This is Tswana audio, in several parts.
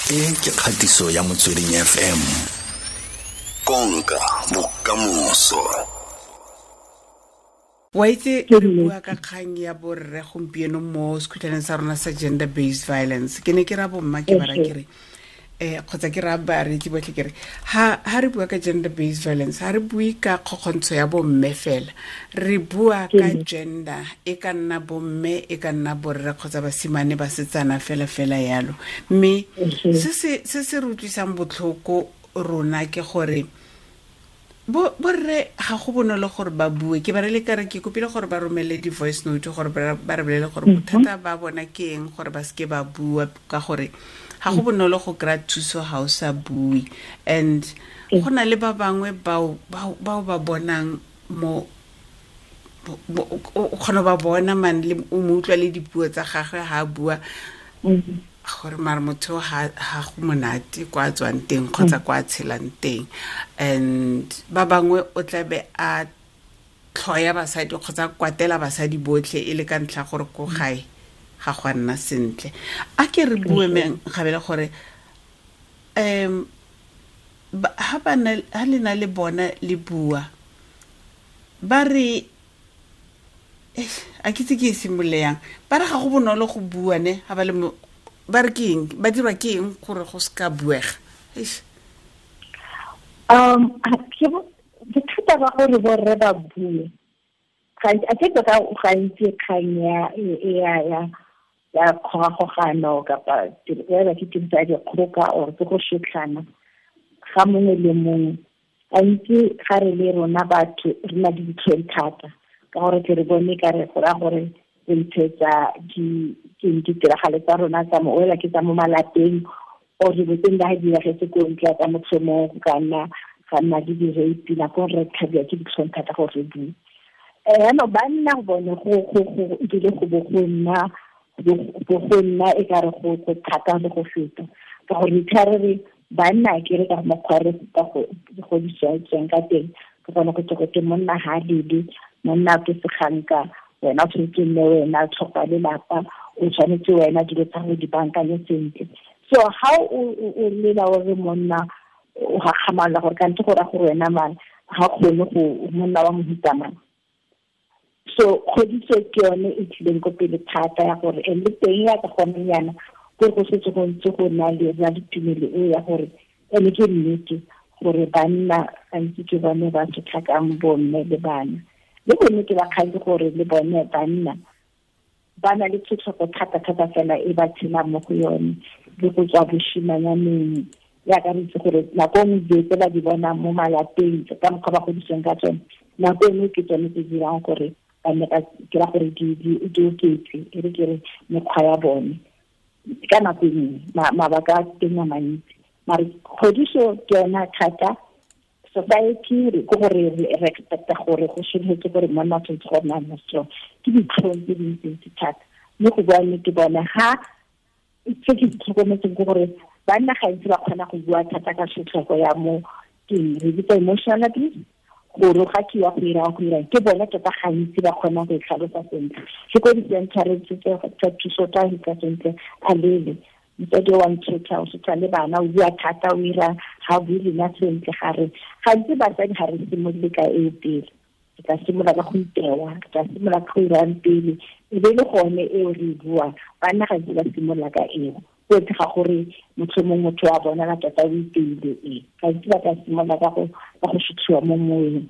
E ke kgatiso ya Motsweding FM. Konka bokamoso. Wa itse, re bua ka kgang ya borre gompieno mo sekhutlhaneng sa rona sa gender based violence. Ke ne ke ra bomma, ke bara ke re kgotsa ke ra bareetsi botlhe ke re, ha re bua ka gender based violence, ha re bue ka kgokgontsho ya bomme fela, re bua ka gender, e ka nna bomme, e ka nna borre kgotsa basimane, basetsana, fela fela yalo. Mme se se re utlwisang botlhoko rona ke gore borre ga go bonolo gore ba bue. Ke ba re le kare ke kopile gore ba romele di-voice note gore ba re bolele gore bothata ba bona ke eng gore ba seke ba bua, ka gore ga go bonolo go kry-a thuso ga o sa bue. And go na le ba bangwe bao ba bonang mo o kgona ba bona man le o mo utlwa le dipuo tsa gagwe ha a bua gore mare motho ha go monate kwa a tswang teng kgotsa kwa a tshelang teng. And ba bangwe o tlabe a tlhoya basadi kgotsa kwatela basadi botlhe e le ka ntlha gore ko gae ga go a nna sentle. A ke re bue meng gabele gore ha le na le bona le bua, ba re a ke tse ke e simolole yang, ba re ga go bonolo go bua ne ha ba le mo, ba re ke eng, ba dirwa ke eng gore go se ka buega? Eish. Bothata ba gore borre ba bue a ke tota gantsi kgang ya kgogakgogano kapa ya ke tiriso ya dikgoka or ke go shetlhana ga mongwe le mongwe. Gantsi ga re le rona batho re na le ditlhong thata, ka gore tle re bone ka re go raya gore re ntshetsa ditiragalo tsa rona tsa mo wela ke tsa mo malapeng or dilo tse di diragetse ko ntle, tsa motlhomong go ka nna ga nna le di-rape, nako re tlhabiwa ke ditlhong thata gore re bue. Yaanong banna bone go ebile go bo go nna e kare go thata le go feta, ka gore itlha re banna ke re ka mokgwa re ka go godisitsweng ka teng, ke gone go tle go te monna ha lele, monna ke seganka, wena o tshwanetse nne wena tlhogo ya lelapa, o tshwanetse wena dilo tsa go di bankanye sentle. So ha o lela o re monna, o gakgamala gore kante go raya gore wena mare ga kgone go monna wa mohuta mang. So kgodiso ke yone e tlileng ko pele thata ya gore, and le teng ya ka gone yana ko go setse go ntse go na le ra le tumelo e ya gore ene ke nnete gore banna gantsi ke bone ba sotlhakang bomme le bana. Le bone ke ba kgang gore le bone banna ba na le tshotlhogo thata thata fela e ba tshelang mo go yone le go tswa boshimanyaneng, ya ka re itse gore nako nngwe dilo tse ba di bonang mo malapeng ka mokgwa ba godisweng ka tsone, nako nngwe ke tsone tse dirang gore ba nne ba dira gore di oketse, e re ke re mekgwa ya bone ka nako e nngwe. Mabaka a teng a mantsi, mare kgodiso ke yona thata. Society ke gore re expecta gore go solofetse gore monna o tshwanetse go nna nna strong. Ke ditlhong tse dintsintsi thata, mme go bua nnete, bone ha se ke se tlhokometseng ke gore banna gantsi ba kgona go bua thata ka setlhogo ya mo keng re bitsa emotional abuse, go rogakiwa, go irang, ke bone tota gantsi ba kgona go e tlhalosa sentle. Ke ko di-centereng tsa thuso tsa hitsa sentle a lele motsadi wa ntshotlha, o sotla le bana, o bua thata, o ira ga o bue lena sentle. Ga re gantsi basadi ga re simolole ka eo pele, re tla simolola ka go itewa, re tla simolola ka go irang pele, e be le gone eo re e buang. Banna gantsi ba simolola ka eo go ga gore motlhomong motho wa bona la tota o iteile e, gantsi ba tla simolola ka go sutlhiwa mo moeng.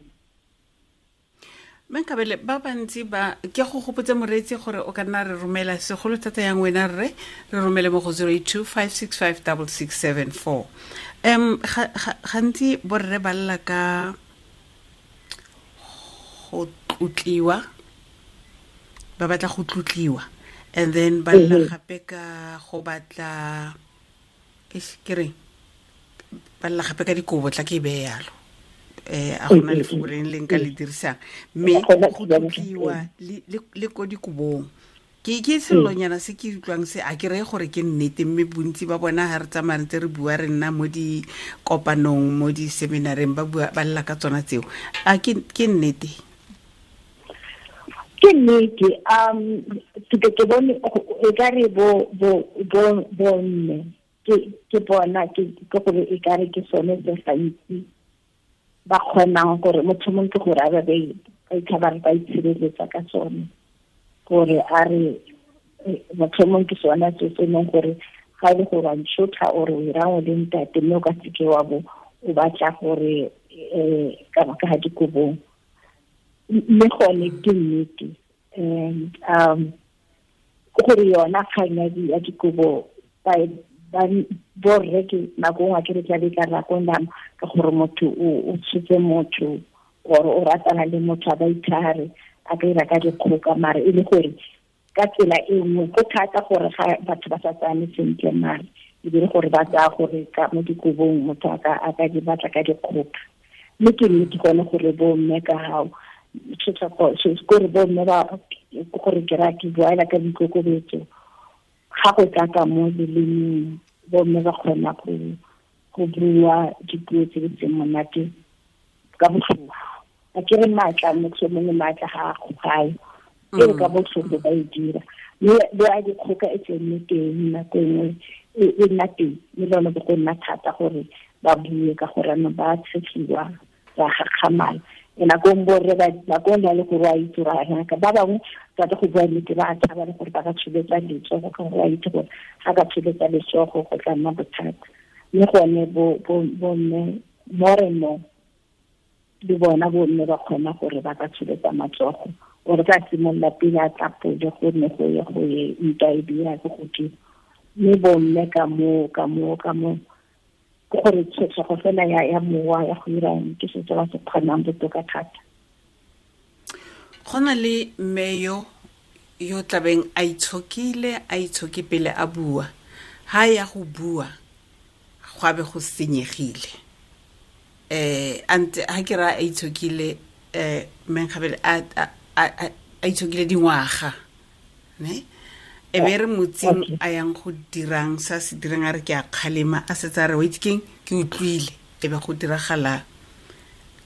Menkabele, ba bantsi ba ke go gopotse moreetsi gore o ka nna re romela, segolo thata yang wena rre, re romele mo go 082 565 6674. Gantsi borre ba lla ka go tlotliwa, ba batla go tlotliwa, and then ba lla gape ka go batla, eish, ke reng, ba lla gape ka dikobo, tla ke e beye yalo. A gona lefoko le leng ka le dirisang, mme go tlotliwa le ko dikobong ke selonyana se ke utlwang se, a ke reye gore ke nnete, mme bontsi ba bona ga re tsamaya re ntse re bua, re nna mo dikopanong, mo di-seminareng, ba bua ba lla ka tsona tseo. A ke nnete? Ke nnete. Ke bone e ka re bo nne Ke bona ke gore e kare ke sone se gantsi ba kgonang gore motho mongwe ke gore a ba ba ba itshireletsa ka sone, gore a re motho mongwe ke sone se se leng gore ga e le gore wa ntšhotlha ore o irang o le ntate, mme o ka seke wa bo o batla gore ka ga dikobong. Mme gone ke nnete, and ke gore yona kgang ya dikobo borre ke nako nngwe ke re tla be ka rra ko nama ka gore motho o tshotse motho or o ratana le motho a ba ithare a ka ira ka dikgoka, mare e le gore ka tsela e nngwe go thata gore ga batho ba sa tsayane sentle, mare e be gore ba tsaya gore ka mo dikobong motho a ka di batla ka dikgoka. Mme ke nnete gone gore bomme ka gao kore bomme ba gore ke raya ke buaela ka boikokobetso, ga go tla ka mo lelemeng bomme ba kgona go bua dipuo tse di seng monate ka botlhofo. A ke re maatla motho mongwe maatla ga a gogae, e re ka botlhofo ba e dira, mme le a dikgoka e tsene teng nako nngwe e nna teng, mme le yone bo go nna thata gore ba bue ka gore ano ba tshegiwa ba gakgamala. E nako borre ba nako nngwe le gore wa itse gore a ka ba bangwe tota go bua nnete ba tshaba le gore ba ka tsholetsa letsogo ka gore wa itse gore ga ka tsholetsa letsogo go tla nna bothata. Mme gone bomme more and more le bona bomme ba kgona gore ba ka tsholetsa matsogo, ore tla simolola pele a tlapole go ne go ye go ye ntwa e dira ko godimo. Mme bomme ka mo ke gore tshotlego fela ya mowa ya go irang ke se ba se kgonang botoka thata. Go na le mme yo tlabeng a itshokile a itshoke pele a bua, ha ya go bua go abe go senyegile. Ante ha ke ra a itshokile Menkgabele a itshokile dingwaga ne, e be re motsing a yang go dirang sa se dirang a re ke a kgalema a setse a re wait keng ke utlwile, e be go diragala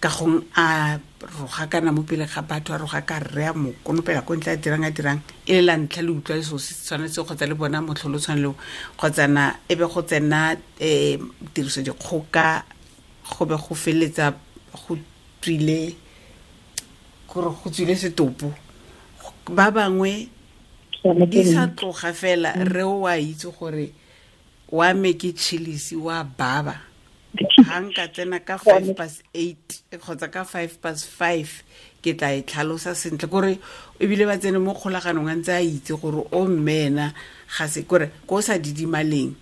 ka gong a roga kana mo pele ga batho, a roga ka rre a mo konopela ko ntle a dirang e le la ntlha le utlwa le seo se tshwanetse kgotsa le bona motlholo o tshwane leo kgotsa na e be go tsena tiriso dikgoka go be go feletsa go tswile gore go tswile setopo. Ba bangwe di sa tloga fela re o a itse gore wa me ke chilisi wa baba, ha nka tsena ka 8:05 kgotsa ka 5:05 ke tla e tlhalosa sentle kore ebile ba tsene mo kgolaganong a ntse a itse gore o mmena ga se kore ko sa didimaleng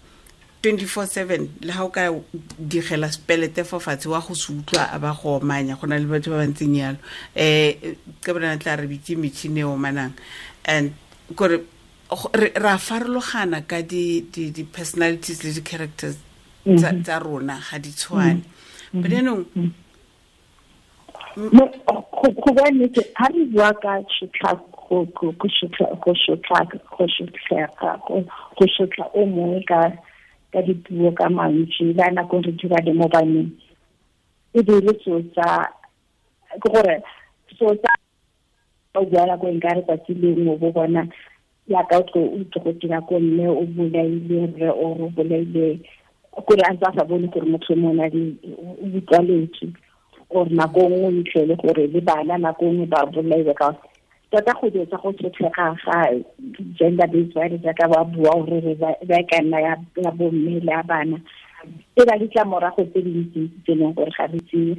24/7 le ha o ka digela spelete fo fatshe wa go se utlwa a ba go omanya. Go na le batho ba ba ntseng yalo ka bona tla re bitse metšhini e omanang, and kore ra farologana ka di personalities le di characters tsa rona ga di tshwane. But yaanong go bua nnete ha re bua ka go sotla o mongwe ka dipuo ka mantswe la nako re dira le mo baneng e be le seo tsa ke gore seo tsa o bua nako e nkare tsatsi lengwe bo bona yaka o tlo go dira ko mme o bolaile rre or o bolaile kore a ntse a sa bone gore motho mongwe na le o utlwaletswe, or nako nngwe o itlhele gore le bana nako nngwe ba bolaiwe ka tota go dilo tsa go tshotlhega ga gender based violence jaaka ba bua gore ba ka nna ya bomme le ya bana, e ba ditlamorago tse dintsi tse e leng gore ga re tseye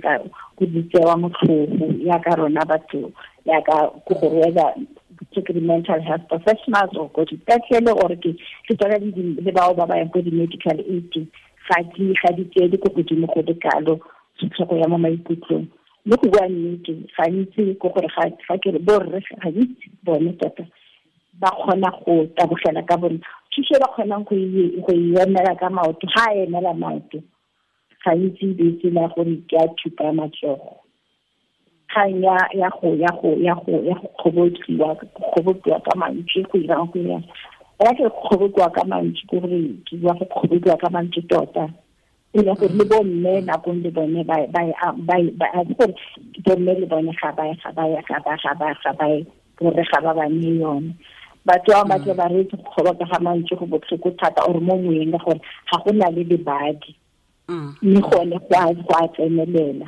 go di tsewa motlhofo yaka rona batho yaka ke gore whether ke di-mental health professionals or ko dipetlele or ke tsona le bao ba ba yang ko di-medical aid ga di tseele ko godimo go le kalo tshotlego ya mo maikutlong. Le go bua nnete gantsi ke gore ga ke re borre gantsi bone tota ba kgona go tabogela ka bone thuso ba kgonang go e emela ka maoto, ga a emela maoto gantsi be tsela gore ke a thupa matsogo. Kgang ya go kgobokiwa ka mantswe go irang go irang ya ke kgobokiwa ka mantswe ke gore ke bua go kgobokiwa ka mantswe tota e le gore le bomme nakong le bone ba gore bomme le bone ga ba borre ga ba ba ne yone. Batho ba ba tle ba reetse go kgoba ka ga mantswe go botlhoko thata or mo moyeng ka gore ga go na le lebadi. Mme gone go a tsenelela.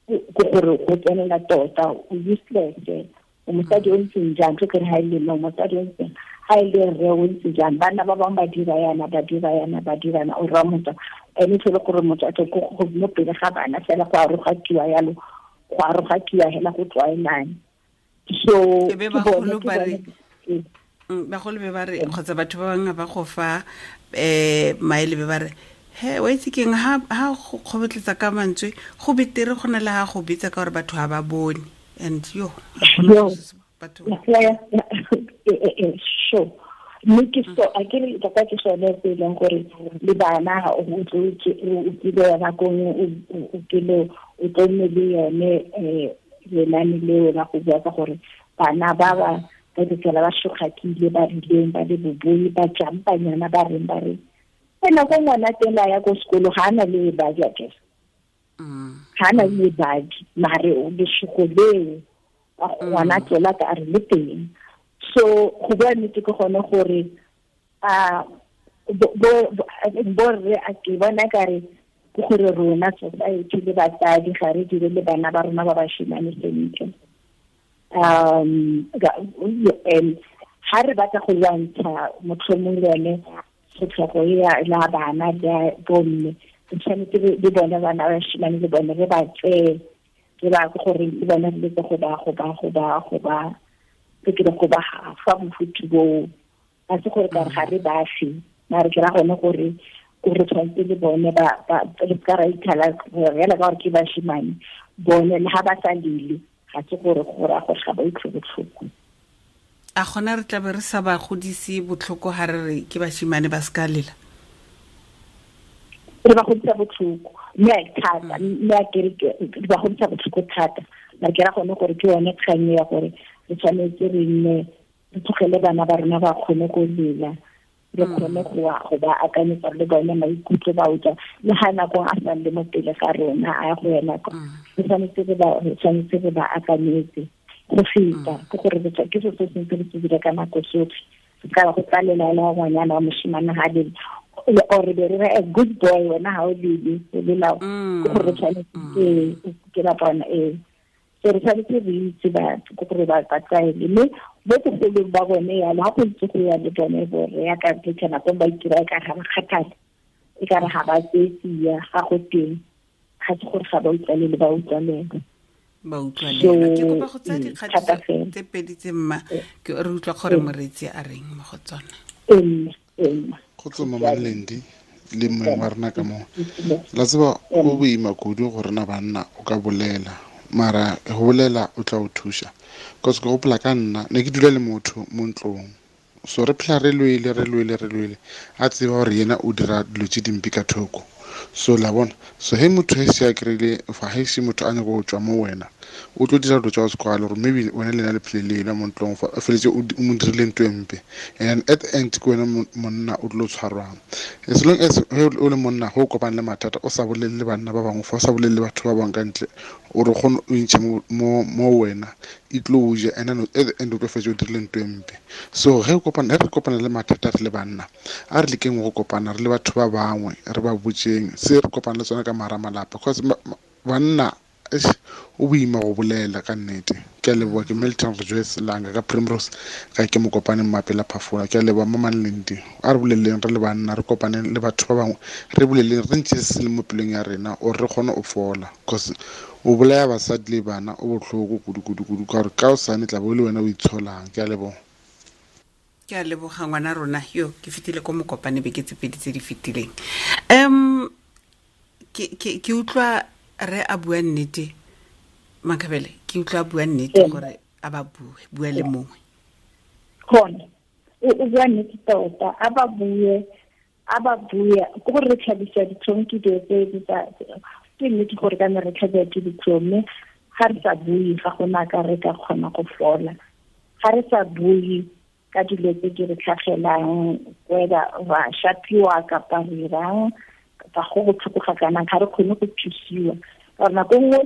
Ke gore go tsenela tota o useless. O mosadi o ntseng jang ke re ha e le mosadi o ntseng ha e le rre o ntse jang bana ba bangwe ba dira yana ba dira yana ba dirana o rra motho ene tlhole gore motho a tle go mo pele ga bana fela go arogakiwa yalo go arogakiwa hela go tlwaelane. So ke bagolo ba re bagolo be ba re kgotsa batho ba bangwe ba go fa maele be ba re he wa itse keng ha go kgobotletsa ka mantswe go betere go na le ha go betsa ka gore batho ha ba bone. And yo batho sure mme ke so a ke re tota ke sone se e leng gore le bana o kile nako nngwe o kile o tlo nne le yone lenane leo la go bua ka gore bana ba ba ba ditsela ba shogakile ba rileng ba le boboi ba jampanyana ba reng ba reng e nako ngwana teng a ya ko sekolo ga a na le badi a kere ga a na le badi mare o leshogo leo ngwana tswela ka a re le teng. So go bua nnete ke gone gore a borre a ke bona kare ke gore rona society le batsadi ga re dire le bana ba rona ba bashimane sentle. And ha re batla go lwantsha motlhomong le yone setlhogo ya la bana le bomme re tshwanetse le bone bana ba bashimane le bone re ba tseye re ba gore le bone re letse go ba ke go ba fa bofutu bo a se gore ka ga re ba fe mare ke ra gone gore o re tshwanetse le bone ba re ka ra ithala gore yela ka gore ke bashimane bone le ha ba sa lele ga se gore go ra gore ga ba utlwe botlhoko. A gona re tla be re sa ba godise botlhoko ha re re ke bashimane ba ska lela? Re ba godisa botlhoko mme a thata mme a ke re ba godisa botlhoko thata mare ke ra gone gore ke yone kgang ya gore re tshwanetse re nne re tlogele bana ba rona ba kgone go lela re kgone go ba akanyetsa le bone maikutlo ba utlwa le ga nako a sa le mo pele ga rona a ya go ena kwa re tshwanetse re ba akanyetse go feta ke gore ke se se sentse re se dira ka nako tsotlhe se ka go tlalela le ngwanyana wa moshimane ga lele or be re a good boy wena ha o lele o lela ke gore re tshwanetse ke ba bona so re tshwanetse re itse batho ke gore ba tlwaele mme mo bogolong ba bone yalo ga go ntse go ya le bone borre ya ka ke nako ba itira e ka ga ba kgathale e ka re ga ba tseye tsia ga go teng ga se gore ga ba utlwalele ba utlwalela ba utlwalela. Ke kopa go tsaya dikgatiso tse pedi tse mma ke re utlwa gore moreetsi a reng mo go tsona. Go tswa Mama Lendi le mongwe wa rena ka moo la tseba go boima kudu go rena banna o ka bolela mara go bolela o tla o thuša cause ke gopola ka nna ne ke dula le motho mo ntlong so re phela re lwele a tseba gore yena o dira dilo tse dimpe ka thoko so la bona so he motho he se a kry-ile fa he se motho a nyako go tswa mo wena o tlo dira dilo tsa go sekwale gore maybe wena le na le phele le mo ntlong fa a feletse o mo dirile ntho e mpe and at the end ke wena monna o tlo tshwarwang as long as he o le monna go kopane le mathata o sa bolele le banna ba bangwe fa o sa bolele le batho ba bangwe ka ntle o re kgone o intšhe mo wena e tlo ja and then at the end o tlo fetsa o dirile ntho e mpe. So ge re kopana le mathata re le banna a re lekeng go kopana re le batho ba bangwe re ba botseng se re kopana le tsona ka mara malapa cause banna o boima go bolela ka nnete. Ke a leboa ke Milton Rejoice Langa ka Primrose ga ke mo kopane mmapela Phafola. Ke a leboa Mama Lendi a re boleleng re le banna re kopane le batho ba bangwe re boleleng re ntse se le mo pelong ya rena or re kgone go fola cause o bolaya basadi le bana o botlhoko kudu kudu kudu ka gore ka o sane tla bo le wena o itsholang. Ke a leboa. Ke a leboga ngwana rona yo ke fetile ko mokopane beke tse pedi tse di fetileng. Ke utlwa re a bua nnete Makhabele ke utlwa bua nnete gore a ba bue bua le mongwe gone o bua nnete tota a ba bue ke gore re tlhabisa ditlhong ke dilo tse di sa ke nnete gore ka ne re tlhabisa ke ditlhong mme ga re sa bue ga gona ka re ka kgona go fola ga re sa bue ka dilo tse di re tlhagelang whether ra shapiwa kapa re irang kapa go botlhoko ga kana ga re kgone go thusiwa ka gore nako nngwe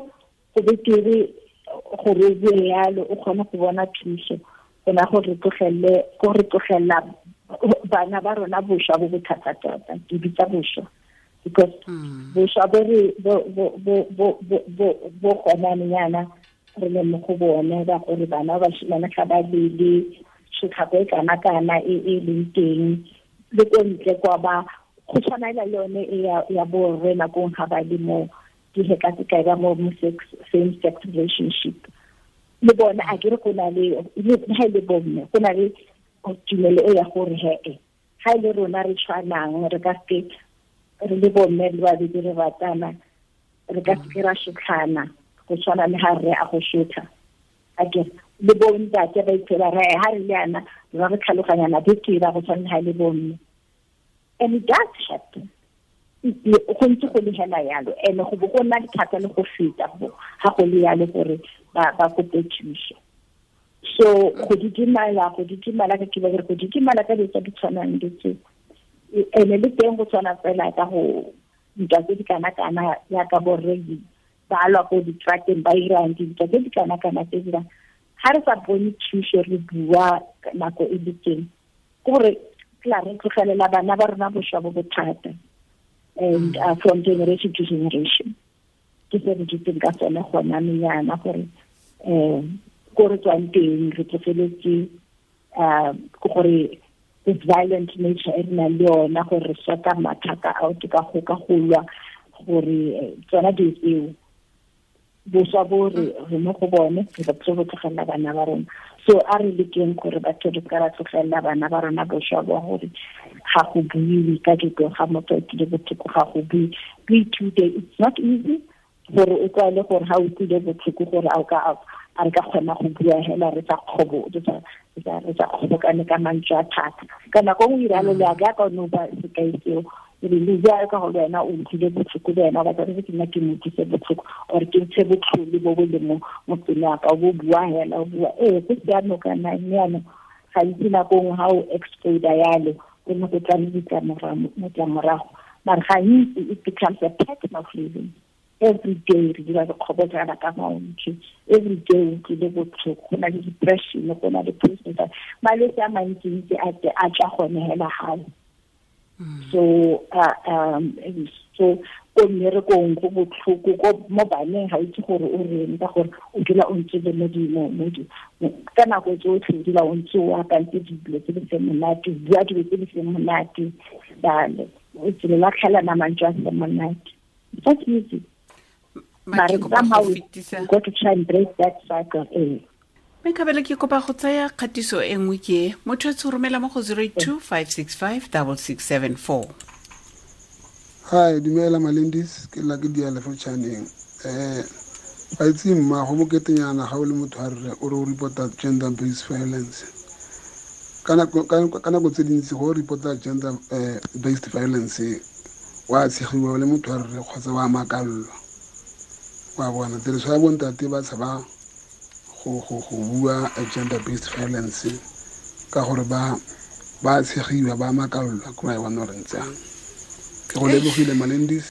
go betere gore o bue yalo o kgone go bona thuso Gona go re tlogelele go re tlogelela bana ba rona bošwa bo bothata tota. Ke bitsa bošwa because bošwa bo re bo gona nyana re le mo go bone ba gore bana ba bashimane ga ba lele tshotlhako e kana-kana e e leng teng le ko ntle kwa ba go tshwana le yone e ya borre nakong ga ba le mo ke ka sekai ba mo same sex relationship le bone a ke re go na le ha le bomme go na le tumelo e ya gore he ha ile rona re tshwanang re ka se re le bomme le babedi re ratana re ka se ra shotlhana go tshwana le ha re a go shotha a ke le bontate ba itshela re ha re le ana re re tlhaloganyana betere go tshwana le ha le bomme. And it does happen. Go ntse go le hela yalo and go bo go nna dithata le go feta ga go le yalo gore ba kope thuso. So go didimala ka ke ba gore go didimala ka dilo tse di tshwanang le tse ene le teng go tshwana fela ka go ntwa tse di kana-kana yaka borre ba lwa ko ditrateng ba irang dintwa tse di kana-kana tse dirang ga re sa bone thuso re bua nako e le teng ke gore tla re tlogelela bana ba rona bošwa bo bothata. And from generation to generation ke se re dutseng ka sone gona menyana gore ko re tswang teng re tlogeletse ke gore this violent nature e re nang le yona gore re sota mathata ao ke ka go lwa gore tsona dilo tseo boswa bo re mo go bone re tlo go tlogelela bana ba rona. So a re lekeng gore batho re ka ra tlogelela bana ba rona boswa bo gore ga go buiwe ka dilo ga motho a tlile botlhoko ga go bue re ithute. It's not easy gore o tlwaele gore ga o utlwile botlhoko gore a re ka kgona go bua hela re sa kgobo re sa kgobokane ka mantswe a thata ka nako nngwe iralo le a ka no ba sekai seo re le bua ka gore wena o utlwile botlhoko le wena o batla re ke nna ke mo utlwise botlhoko or ke ntshe botlhole bo bo leng mo pelong ya ka o bo bua hela o bua ee go siame kana mme gantsi nako nngwe ga o explode yalo go ne go tla le ditlamorago mare gantsi it becomes a pattern of living. Every day re dira dikgobokana ka maontši, every day o utlwile botlhoko, go na le depression, go na le post malwetse a mantsintsi a tswa gone hela gao. So so ko mmerekong go botlhoko ko mo baneng ga itse gore o reng ka gore o dula o ntse le modimo ka nako tsotlhe o dula o ntse o akantse dilo tse di seng monate, o bua dilo tse di seng monate, o tsile latlhelana mantswe a seng monate. It's not easy. But somehow we got to try and break that cycle. Mekabele ke kopa go tsaya kgatiso e nngwe ke motho a romela mo go 082 565 6674. Hi, dumela Malindis, ke la ke dia le fo chaneng. Ba itse mma go boketenyana ga o le motho a re o re o reporta gender based violence. Ka nako tse dintsi go reporta gender based violence wa tshegiwa le motho a re kgotsa wa makallwa. Wa bona tiriso ya bontate ba tshaba go bua gender based violence ka gore ba tshegiwa ba makallwa ke ba e bona gore ntse yang. Ke go lebogile Malindis.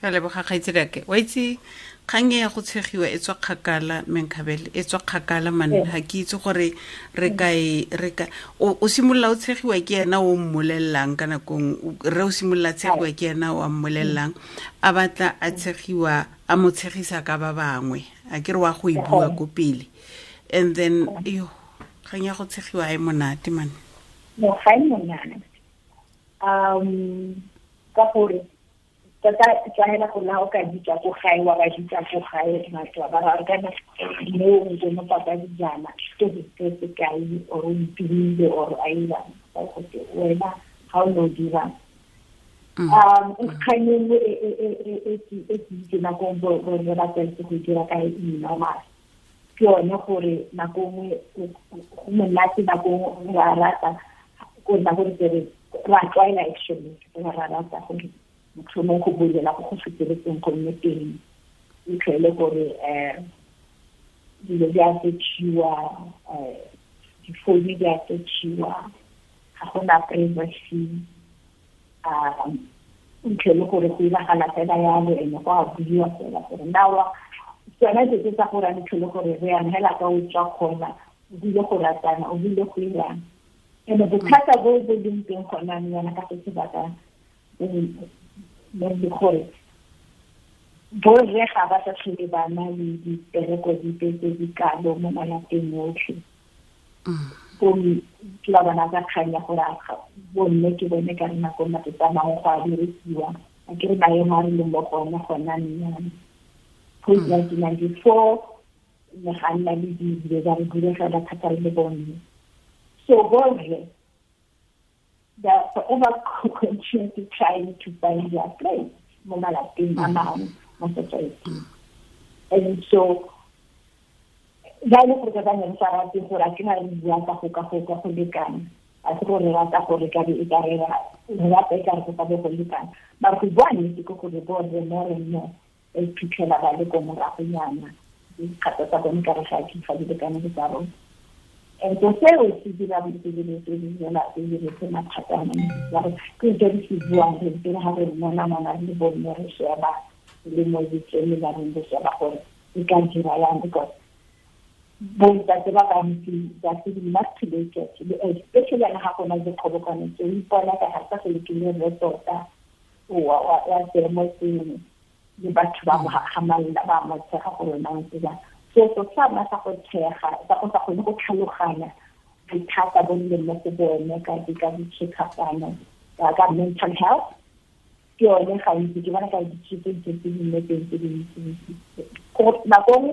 Ka leboga kgaitsedake. Wa itse kgang e ya go tshegiwa e tswa kgakala Menkabele, e tswa kgakala man ga ke itse gore re ka o simolola o tshegiwa ke ena o mmolellang ka nakong re o simolola tshegiwa ke ena o a mmolellang a batla a tshegiwa a mo tshegisa ka ba bangwe a ke re wa go e bua ko pele and then yo kgang ya go tshegiwa ga e monate man. No, ga e monate. Ka gore tota tshwanela go la o ka ditsa ko gae wa ba ditsa ko gae batho ba ba kana mo o mo papa dijana ke se sekai or o itumile or a ira ba go te wena ga o no dira kgang e nngwe e ke nako bo re batla go dira ka e normal ke yone gore nako nngwe go monate nako nngwe ra rata ko nako re ra tlwaela actually ra rata gore motlhomong go bulela go go feteletseng go nne teng o tlhele gore dilo di a searchiwa difounu di a searchiwa ga gona privacy o tlhele gore go iragala fela yalo ene go a buiwa fela gore nawa tsona dilo tsa gore a tlhele gore re amogela ka o tswa kgona o buile go ratana, o buile go irang. And bothata bo bo leng teng gona yana ka se sebaka le gore borre ga ba sa tlhole ba na le dipereko dipe tse di kalo mo malapeng otlhe. Ke la bona ka kgang ya gore bomme ke bone ka nako matsatsi a mangwe go a dirisiwa, a ke re maemo a re leng mo go one gona nnyane. Post 1994 ne ga nna le dilo tsa re diregela thata re le bomme. So borre, they are forever continuously trying to find their place mo malapeng a mangwe mo society. And so ba le gore ba ne sa rate gore a ke na le bua ka go ka go lekana, a se gore rata gore ka be e ka re rata e ka re go ka be go lekana, mara go bua nnete ke gore borre mo re mo ba iphitlhela ba le ko moragonyana, dikgato tsa bone ka re ga di fa di lekane le tsa rona. And so seo se dira se mathata a mantsi, ke tse di se buang re dira ga re mona ngwana le bomme re sheba le mo ditsemelareng re sheba gore e ka dira yang, because bontate ba bantsi ba se emasculated, especially ga gona dikgobokano tse o ipona ka ga sa go lekile re tota wa seemo sengwe le batho ba mo gagamallela ba mo tshega gore o ntse jang. So so sa nna sa go tshega, sa go sa kgone go tlhaloganya bothata bo leng mo go bone ka ditšhekgapano ka mental health. Ke yone gantsi ke bona ka dithuto tse di nne teng tse dintsi. Nako nngwe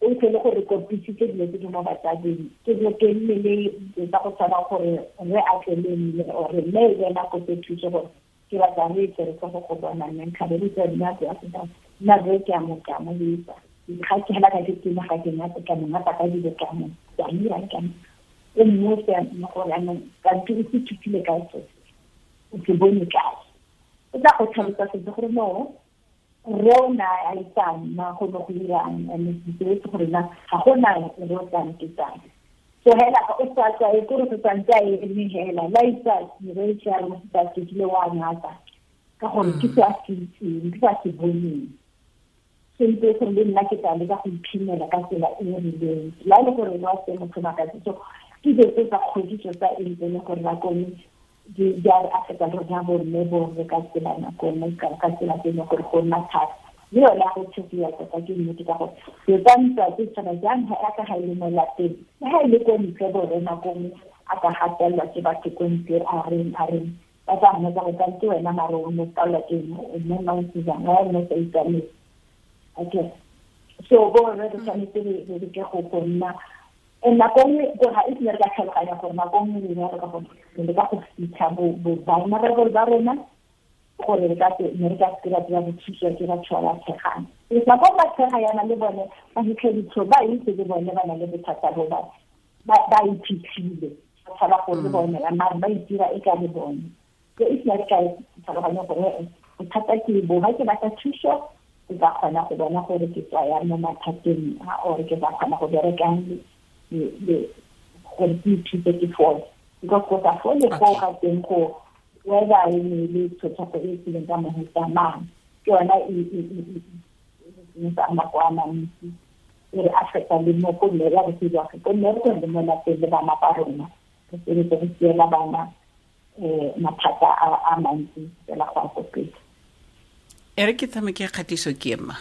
o itlhele gore kopisitse dilo tse di mo batsading, ke dilo ke nne le tsa go tshwana gore re a tle le mme or mme le ena kope thuso gore ke batla re tle re go go bona nna le tse nna ke a nna re ke a mo ka mo itsa ga ke hela ka ke tsena ga ke nna ka nna ka dilo ka mo ka ira ka o mo se mo gore anong ka ke se thutile ka se o ke bone ka o tla go tlhalosa sentle gore no re o na a itsang ma go no go irang and ke itse gore na ga go na re o tsang ke tsang. So hela o sa tswa e gore go tsantse a eme hela la itsa re tla re sa ke le wa ngata ka gore ke se a se itseng ke sa se boneng. Sentse gore le nna ke tla leka go iphimela ka tsela e e rileng la e le gore wa se motho makatse. So ke dilo tse tsa kgodiso tsa eng tse le gore ba kone di a re affecta le rona bomme borre ka tsela nako nngwe ka tsela tse e leng gore go nna thata le yone ya go tshegiwa tota ke nnete ka gore dilo tsa ntwa tse tshwana jang ga ka ga e le mo lapeng le ga e le ko ntle borre nako nngwe a ka gatelelwa ke batho ko ntle a reng ba tla mmotsa go kante wena mare o mo palelwa ke eng, o monna o ntse jang wa o ne o sa itsamaise. Okay, so borre re tshwanetse re leke go nna nako nngwe gore ga e sene re ka tlhaloganya gore nako nngwe re re ka gore re leka go fitlha bo ba rona gore re ka ne re ka se ra dira bothuso ke batho ba ba tshegang. Nako ba tshega yana le bone ba fitlhe ditho ba itse le bone ba na le bothata bo ba iphitlhile ba tshaba gore le bone mare ba itira e ka le bone. So e sene re ka tlhaloganya gore bothata ke bo ga ke batla thuso ke tla kgona go bona gore ke tswa yang mo mathateng a or ke tla kgona go berekang le gore ke ithute ke fole. Because go sa fole go ga teng go whether e ne le tshotlego e tsileng ka mohuta mang ke yona e tsa nako a mantsi e re affecta le mo ko mme ya re se jwa ko mme re le mo lapeng le bana ba rona re sebetse re siela bana mathata a mantsi fela go a ko pele. E re ke tshameke kgatiso ke ema.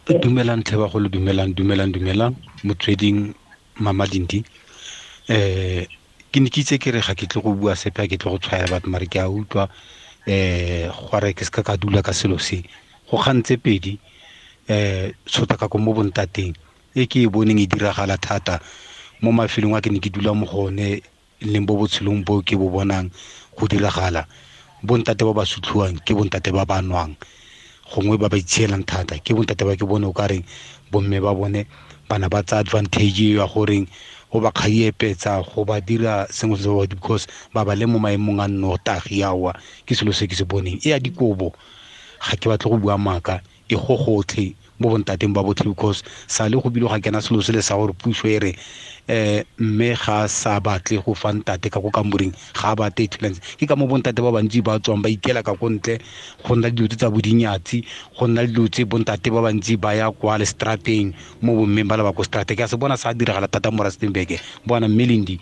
Dumelang tlhe bagolo, dumelang dumelang dumelang motsweding Mama Dindi. Ke ne ke itse ke re ga ke tle go bua sepe, ke tle go tshwaya batho mare ke a utlwa gore ke se ka dula ka selo se go gantse pedi tshotlakako mo bontateng e ke e boneng e diragala thata mo mafelong a ke ne ke dula mo go one leng bo botshelong bo ke bo bonang go diragala. Bontate ba ba sutlhiwang ke bontate ba ba nwang gongwe ba ba itshielang thata ke bontate ba ke bone o ka reng bomme ba bone bana ba tsa advantage ya goreng go ba kgaiepetsa go ba dira sengwe se ba because ba ba le mo maemong a nnotagi yawa ke selo se ke se boneng. E ya dikobo ga ke batle go bua maaka e go gotlhe Mo bontateng ba botlhe, because sa le go bile ga kena selo se le sa gore puso e re mme ga sa batle go fa ntate ka ko kamoreng, ga a batle thulantse. Ke ka mo bontate ba bantsi ba tswang ba ikela ka ko ntle, go nna dilo tse tsa bodinyatsi, go nna dilo tse bontate ba bantsi ba ya kwa le strateng mo bommeng ba le ba ko strateng. Ke a se bona sa diragala thata mo Rustenburg. Bona mme Lendi,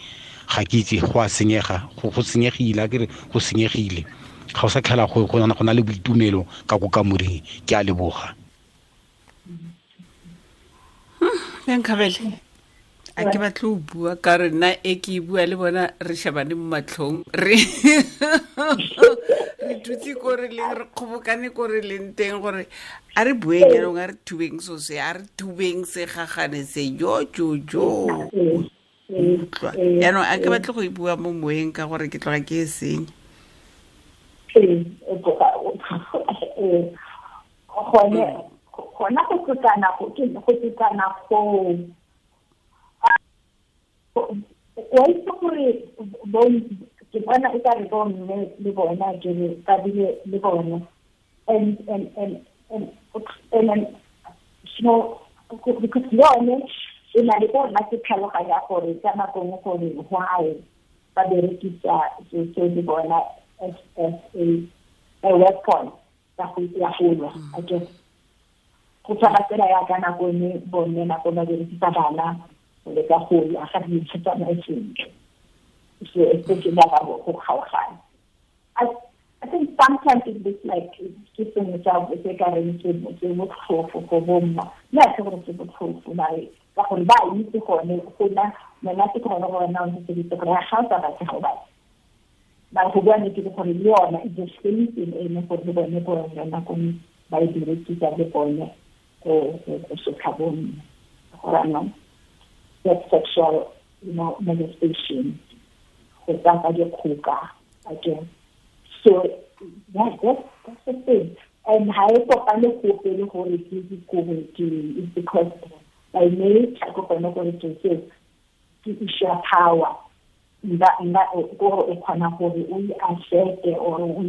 ga ke itse, go a senyega, go senyegile, a ke re go senyegile. Ga o sa tlhola go na le boitumelo ka ko kamoreng. Ke a leboga. Nkhabele, a ke batle go bua ka re nna e ke e bua le bona re shebane mo matlhong, re dutse ko re leng, re kgobokane ko re leng teng, gore a re bueng jaanong, a re thubeng so se, a re thubeng se gagane se, jo jo jo. Utlwa jaanong, a ke batle go e bua mo moeng ka gore ke tloga ke e senya. Gona go tlotlana go go wa itse gore ke bona e ka re bo mme le bona ke re ba bile le bona and so because yone e na le bona ke tlhaloganya gore ka nako nngwe gore why ba berekisa se le bona as a weapon ya go lwa. I guess go tshwana fela ya ka nako ne bone nako ba berekisa bana go leka go lwa ga di tsamaye sentle. So especially ba go kgaogana. I think sometimes it looks like ke sengwe sa se ka reng ke botlhofo go bomma, mme a se gore ke botlhofo mare ka gore ba itse gone go nna monate ke gone gore na o ntse ditse gore ga o sa batle go batla. Mare go bua nnete ke gore le yona e the same thing e leng gore le bone bone nako ba e berekisa le bone go sotla bomme. Gore jaanong that sexual, you know, molestation, go tsaya ka dikgoka again. So yeah, that's the thing. And ha e kopane gope le gore ke dikobo ke is because by nature go gone gore ke se ke issue ya power. Nna gore o kgona gore o e assert or o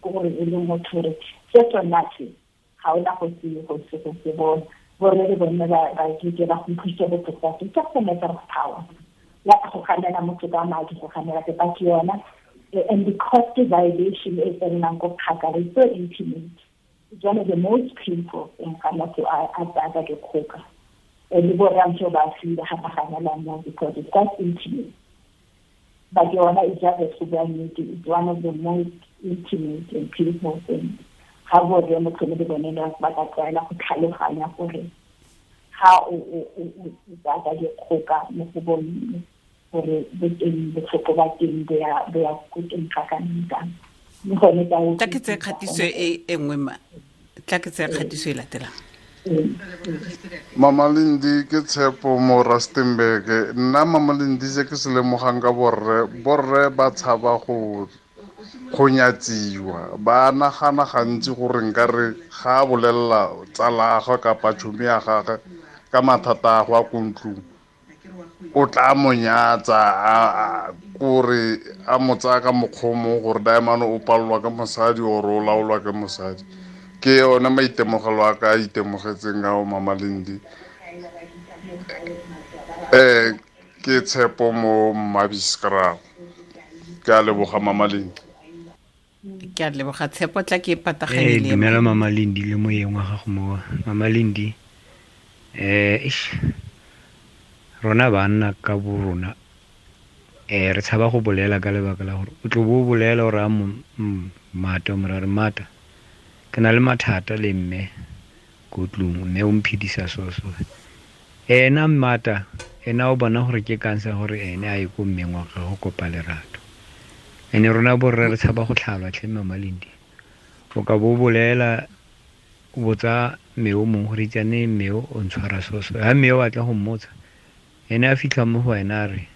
gore e le motho gore se tsona se ga ona go se bona. Borre le bone ba ke ba go utlwisa botlhoko. It's just a matter of power. Ya go ganela motho ka madi, go ganela ke ba ke yona. And because the violation is tsenang ko kgakala, it's so intimate. It's one of the most painful things ga motho a tsaya ka dikgoka. And le borre I'm sure ba feel ga ba ganela mo because it's quite intimate. But yona e just go bua nnete, it's one of the most intimate and painful things. Ga borre motho le bone ba ka tlwaela go tlhaloganya gore ga o tsaya ka dikgoka mo go bomme gore boteng botlhoko ba teng bo ya ko teng ga kanang. Mme gone tla ke tseye kgatiso e nngwe ma, tla ke tseye kgatiso e latelang. Mama Lendi, ke Tshepo mo Rustenburg. Nna Mama Lendi, se ke se lemogang ka borre ba tshaba go nyatsiwa. Ba nagana gantsi gore nkare ga a bolelela tsala gagwe kapa tšhomi ya gagwe ka mathata a gagwe a ko ntlong, o tla mo nyatsa kore a mo tsaya ka mokgwa o mongwe gore daemane o palelwa ke mosadi or o laolwa ke mosadi. Ke yone maitemogelo a ka a itemogetseng ao Mama Lendi. Ke Tshepo mo Mabiskraal. Ke a leboga Mama Lendi. Ke a leboga Tshepo, tla ke patagane le. Dumela Mama Lendi le moyeng wa gago mo. Mama Lendi, rona banna ka bo rona re tshaba go bolela ka lebaka la gore o tlo bo bolela o raya mata, o mo raya mata, ke na le mathata le mme ko tlung, mme o mphedisa so so. Ena mmata, ena o bona gore ke kang sa gore ene a ye ko mmeng wa gagwe go kopa lerato. Ene rona borre re tshaba go tlhalwa tlhe Mama Lendi. O ka bo bolela o botsa mme o mongwe gore itsane mme o ntshwara so so. Ha mme o batla go mmotsa, ene a fitlha mo go wena a re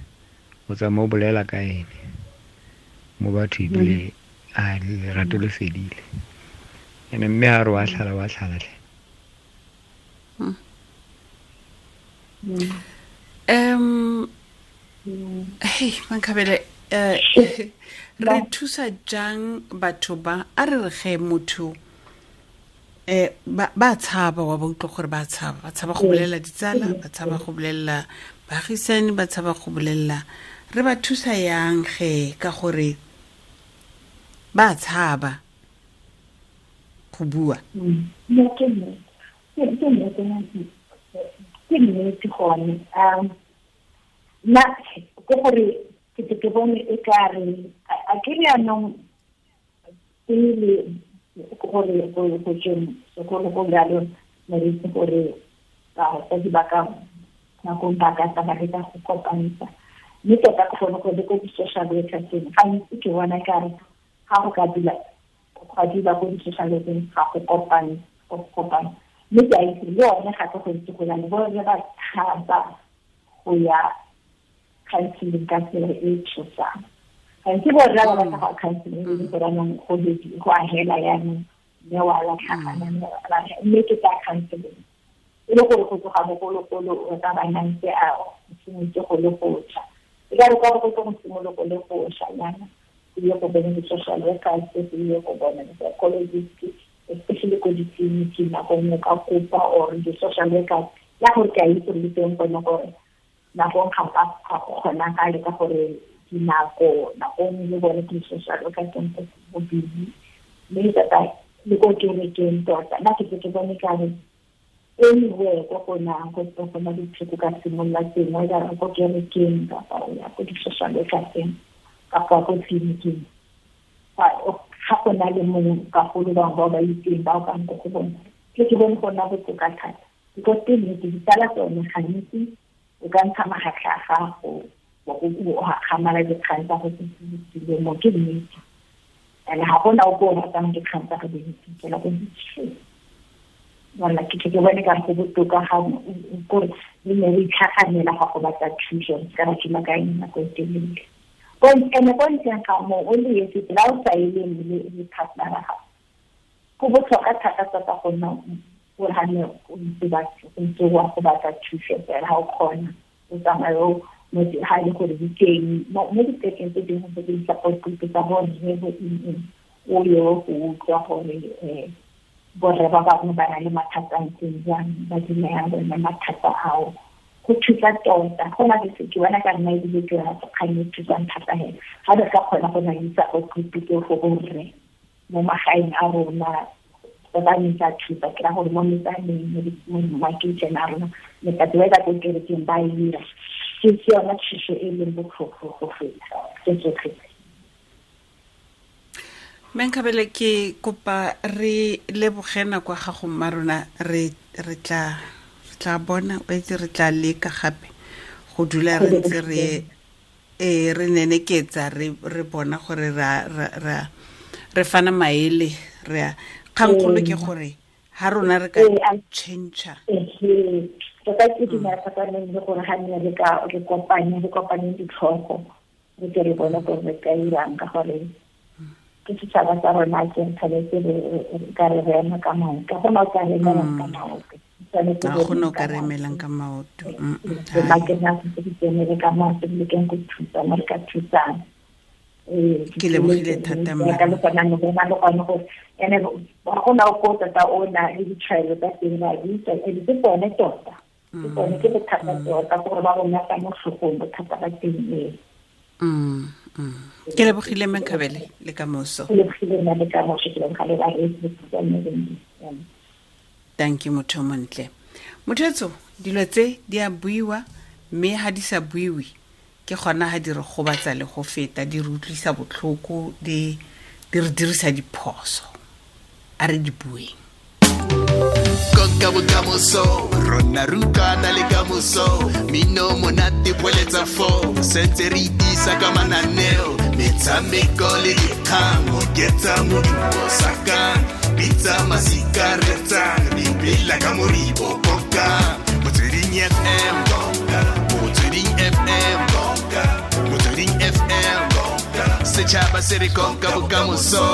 o tsamaya o bolela ka ene mo batho ebile a lerato le fedile. Ene mme a re wa tlhala tlhe. Hey Mankabele, re thusa jang batho ba a re re ge motho Ba tshaba wa ba utlwa gore ba tshaba go bolela ditsala, ba tshaba go bolela baagisani, ba tshaba go bolela. Re ba thusa yang ge ka gore ba tshaba go bua? Ke nnete gone. Nna ke gore ke bone e kare a ke re yanong pele gore go tsweng segologolo jalo ne re itse gore basadi ba ka nakong ba ka tsa ba leka go kopantsha, mme tota ke gone gore le ko di-social worker teng gantsi ke bona kare ga go ka dula gwa dula ko di-social workeng ga go kopane, mme ke a itse le one gape go ntse go jalo, borre ba tshaba go ya counseling ka tsela e tshosang. Gantsi borre ba batla go counseling e le gore anong go a hela yanong mme wa latlhagana, mme ke tsa counseling e le gore go tloga bogologolo o ka ba ntse a simolotse go le goša, e ka re ka go tlo go simologo le goša nyana, e ye go bone di-social workers, e ye go bona di-psychologist, especially ko ditleliniking nako nngwe ka kopa or di-social workers la gore ke a itse le teng gone gore nakong ga go kgonagale ka gore dinako nako nngwe le bone ke di-social workers teng go busy, mme tota le ko kerekeng tota nna ke ke bone kare anywhere ko go nang go gona dipheko ka simolola teng, whether ko kerekeng kapa o ya ko di-social worker teng kapa ko tleliniking, ga go na le mongwe bagolo bangwe bao ba itseng ba o kang ko go bone, ke bone go nna botoka thata because ke nnete ditsala tsone gantsi o ka ntsha magetlha a gago o gamala dikgang tsa go se mo, ke nnete. And ga gona o ko o ratang dikgang tsa go di fela go di wala ke bone ka go botoka ga gore le ne re itlhaganela ga go batla thuso ka ra tšhuma ka eng nako e telele. Ene ko ntleng ga moo o le esi la o sa ileng le partner ya gago, go botlhokwa thata tota go nna gore ga ne o ntse wa go batla thuso fela ga o kgona o tsamaye o ga e le gore di teng mo diplekeng tse dingwe tse di support group tsa borre bo eng o ye go utlwa gore borre ba bangwe ba na le mathata a ntseng jang, ba dula yang bone mathata ao, go thusa tota. Go na le se ke bona ka nna ebile ke yona kgang e thusang thata hela ga re ka kgona go na le support group tseo for borre mo magaeng a rona, ba ntse a thusa ke ra gore mo metsaneng mo makeishene a rona letsatsi ba ko kerekeng ba e dira, ke yona thuso e leng botlhoko go feta tse tsotlhe. Menkabele ke kopa re leboge nako ya gago mma rona, re tla bona o itse re tla leka gape go dula re ntse re neneketsa re bona gore re fana maele re kgangkgolo ke gore ha rona re ka change. Tota ke dumela thata le gore ga nne re ka re kopane ditlhogo re ke re bone gore re ka irang ka gore ke setšhaba sa rona ke tshwanetse re ka re ema ka maoto, ga gona o ka re emelang ka maoto, ga gona o ka re emelang ka maoto. Ke na se ke emele ka maoto le ke go thusa mo re ka thusang. Ke lebogile thata mma ka le gona le bona le gone gore ene ga gona o ko tota o na le ditshwaelo tsa teng ba di itse e ke tsone tota, ke tsone ke bothata tota gore ba bona ka mo tlhogong bothata ba teng e. Ke lebogile Menkabele le ka moso. Ke lebogile nna le ka moso, ke leboga le bareetsi. Thank you motho montle. Motho dilo tse di a buiwa mme ha di sa buiwe ke gona ha di re gobatsa le go feta, di re utlwisa botlhoko, di re dirisa diphoso. A re di bueng. Konka bokamoso rona rutana le kamoso, mino monate poeletsa fo sentse re itisa ka mananeo, metshameko le dikgang, oketsa modumo sakang, bitsa masika re tsang, bipela ka moribo koka. Motsweding FM, Motsweding FM, Motsweding FM, setšhaba se re konka bokamoso.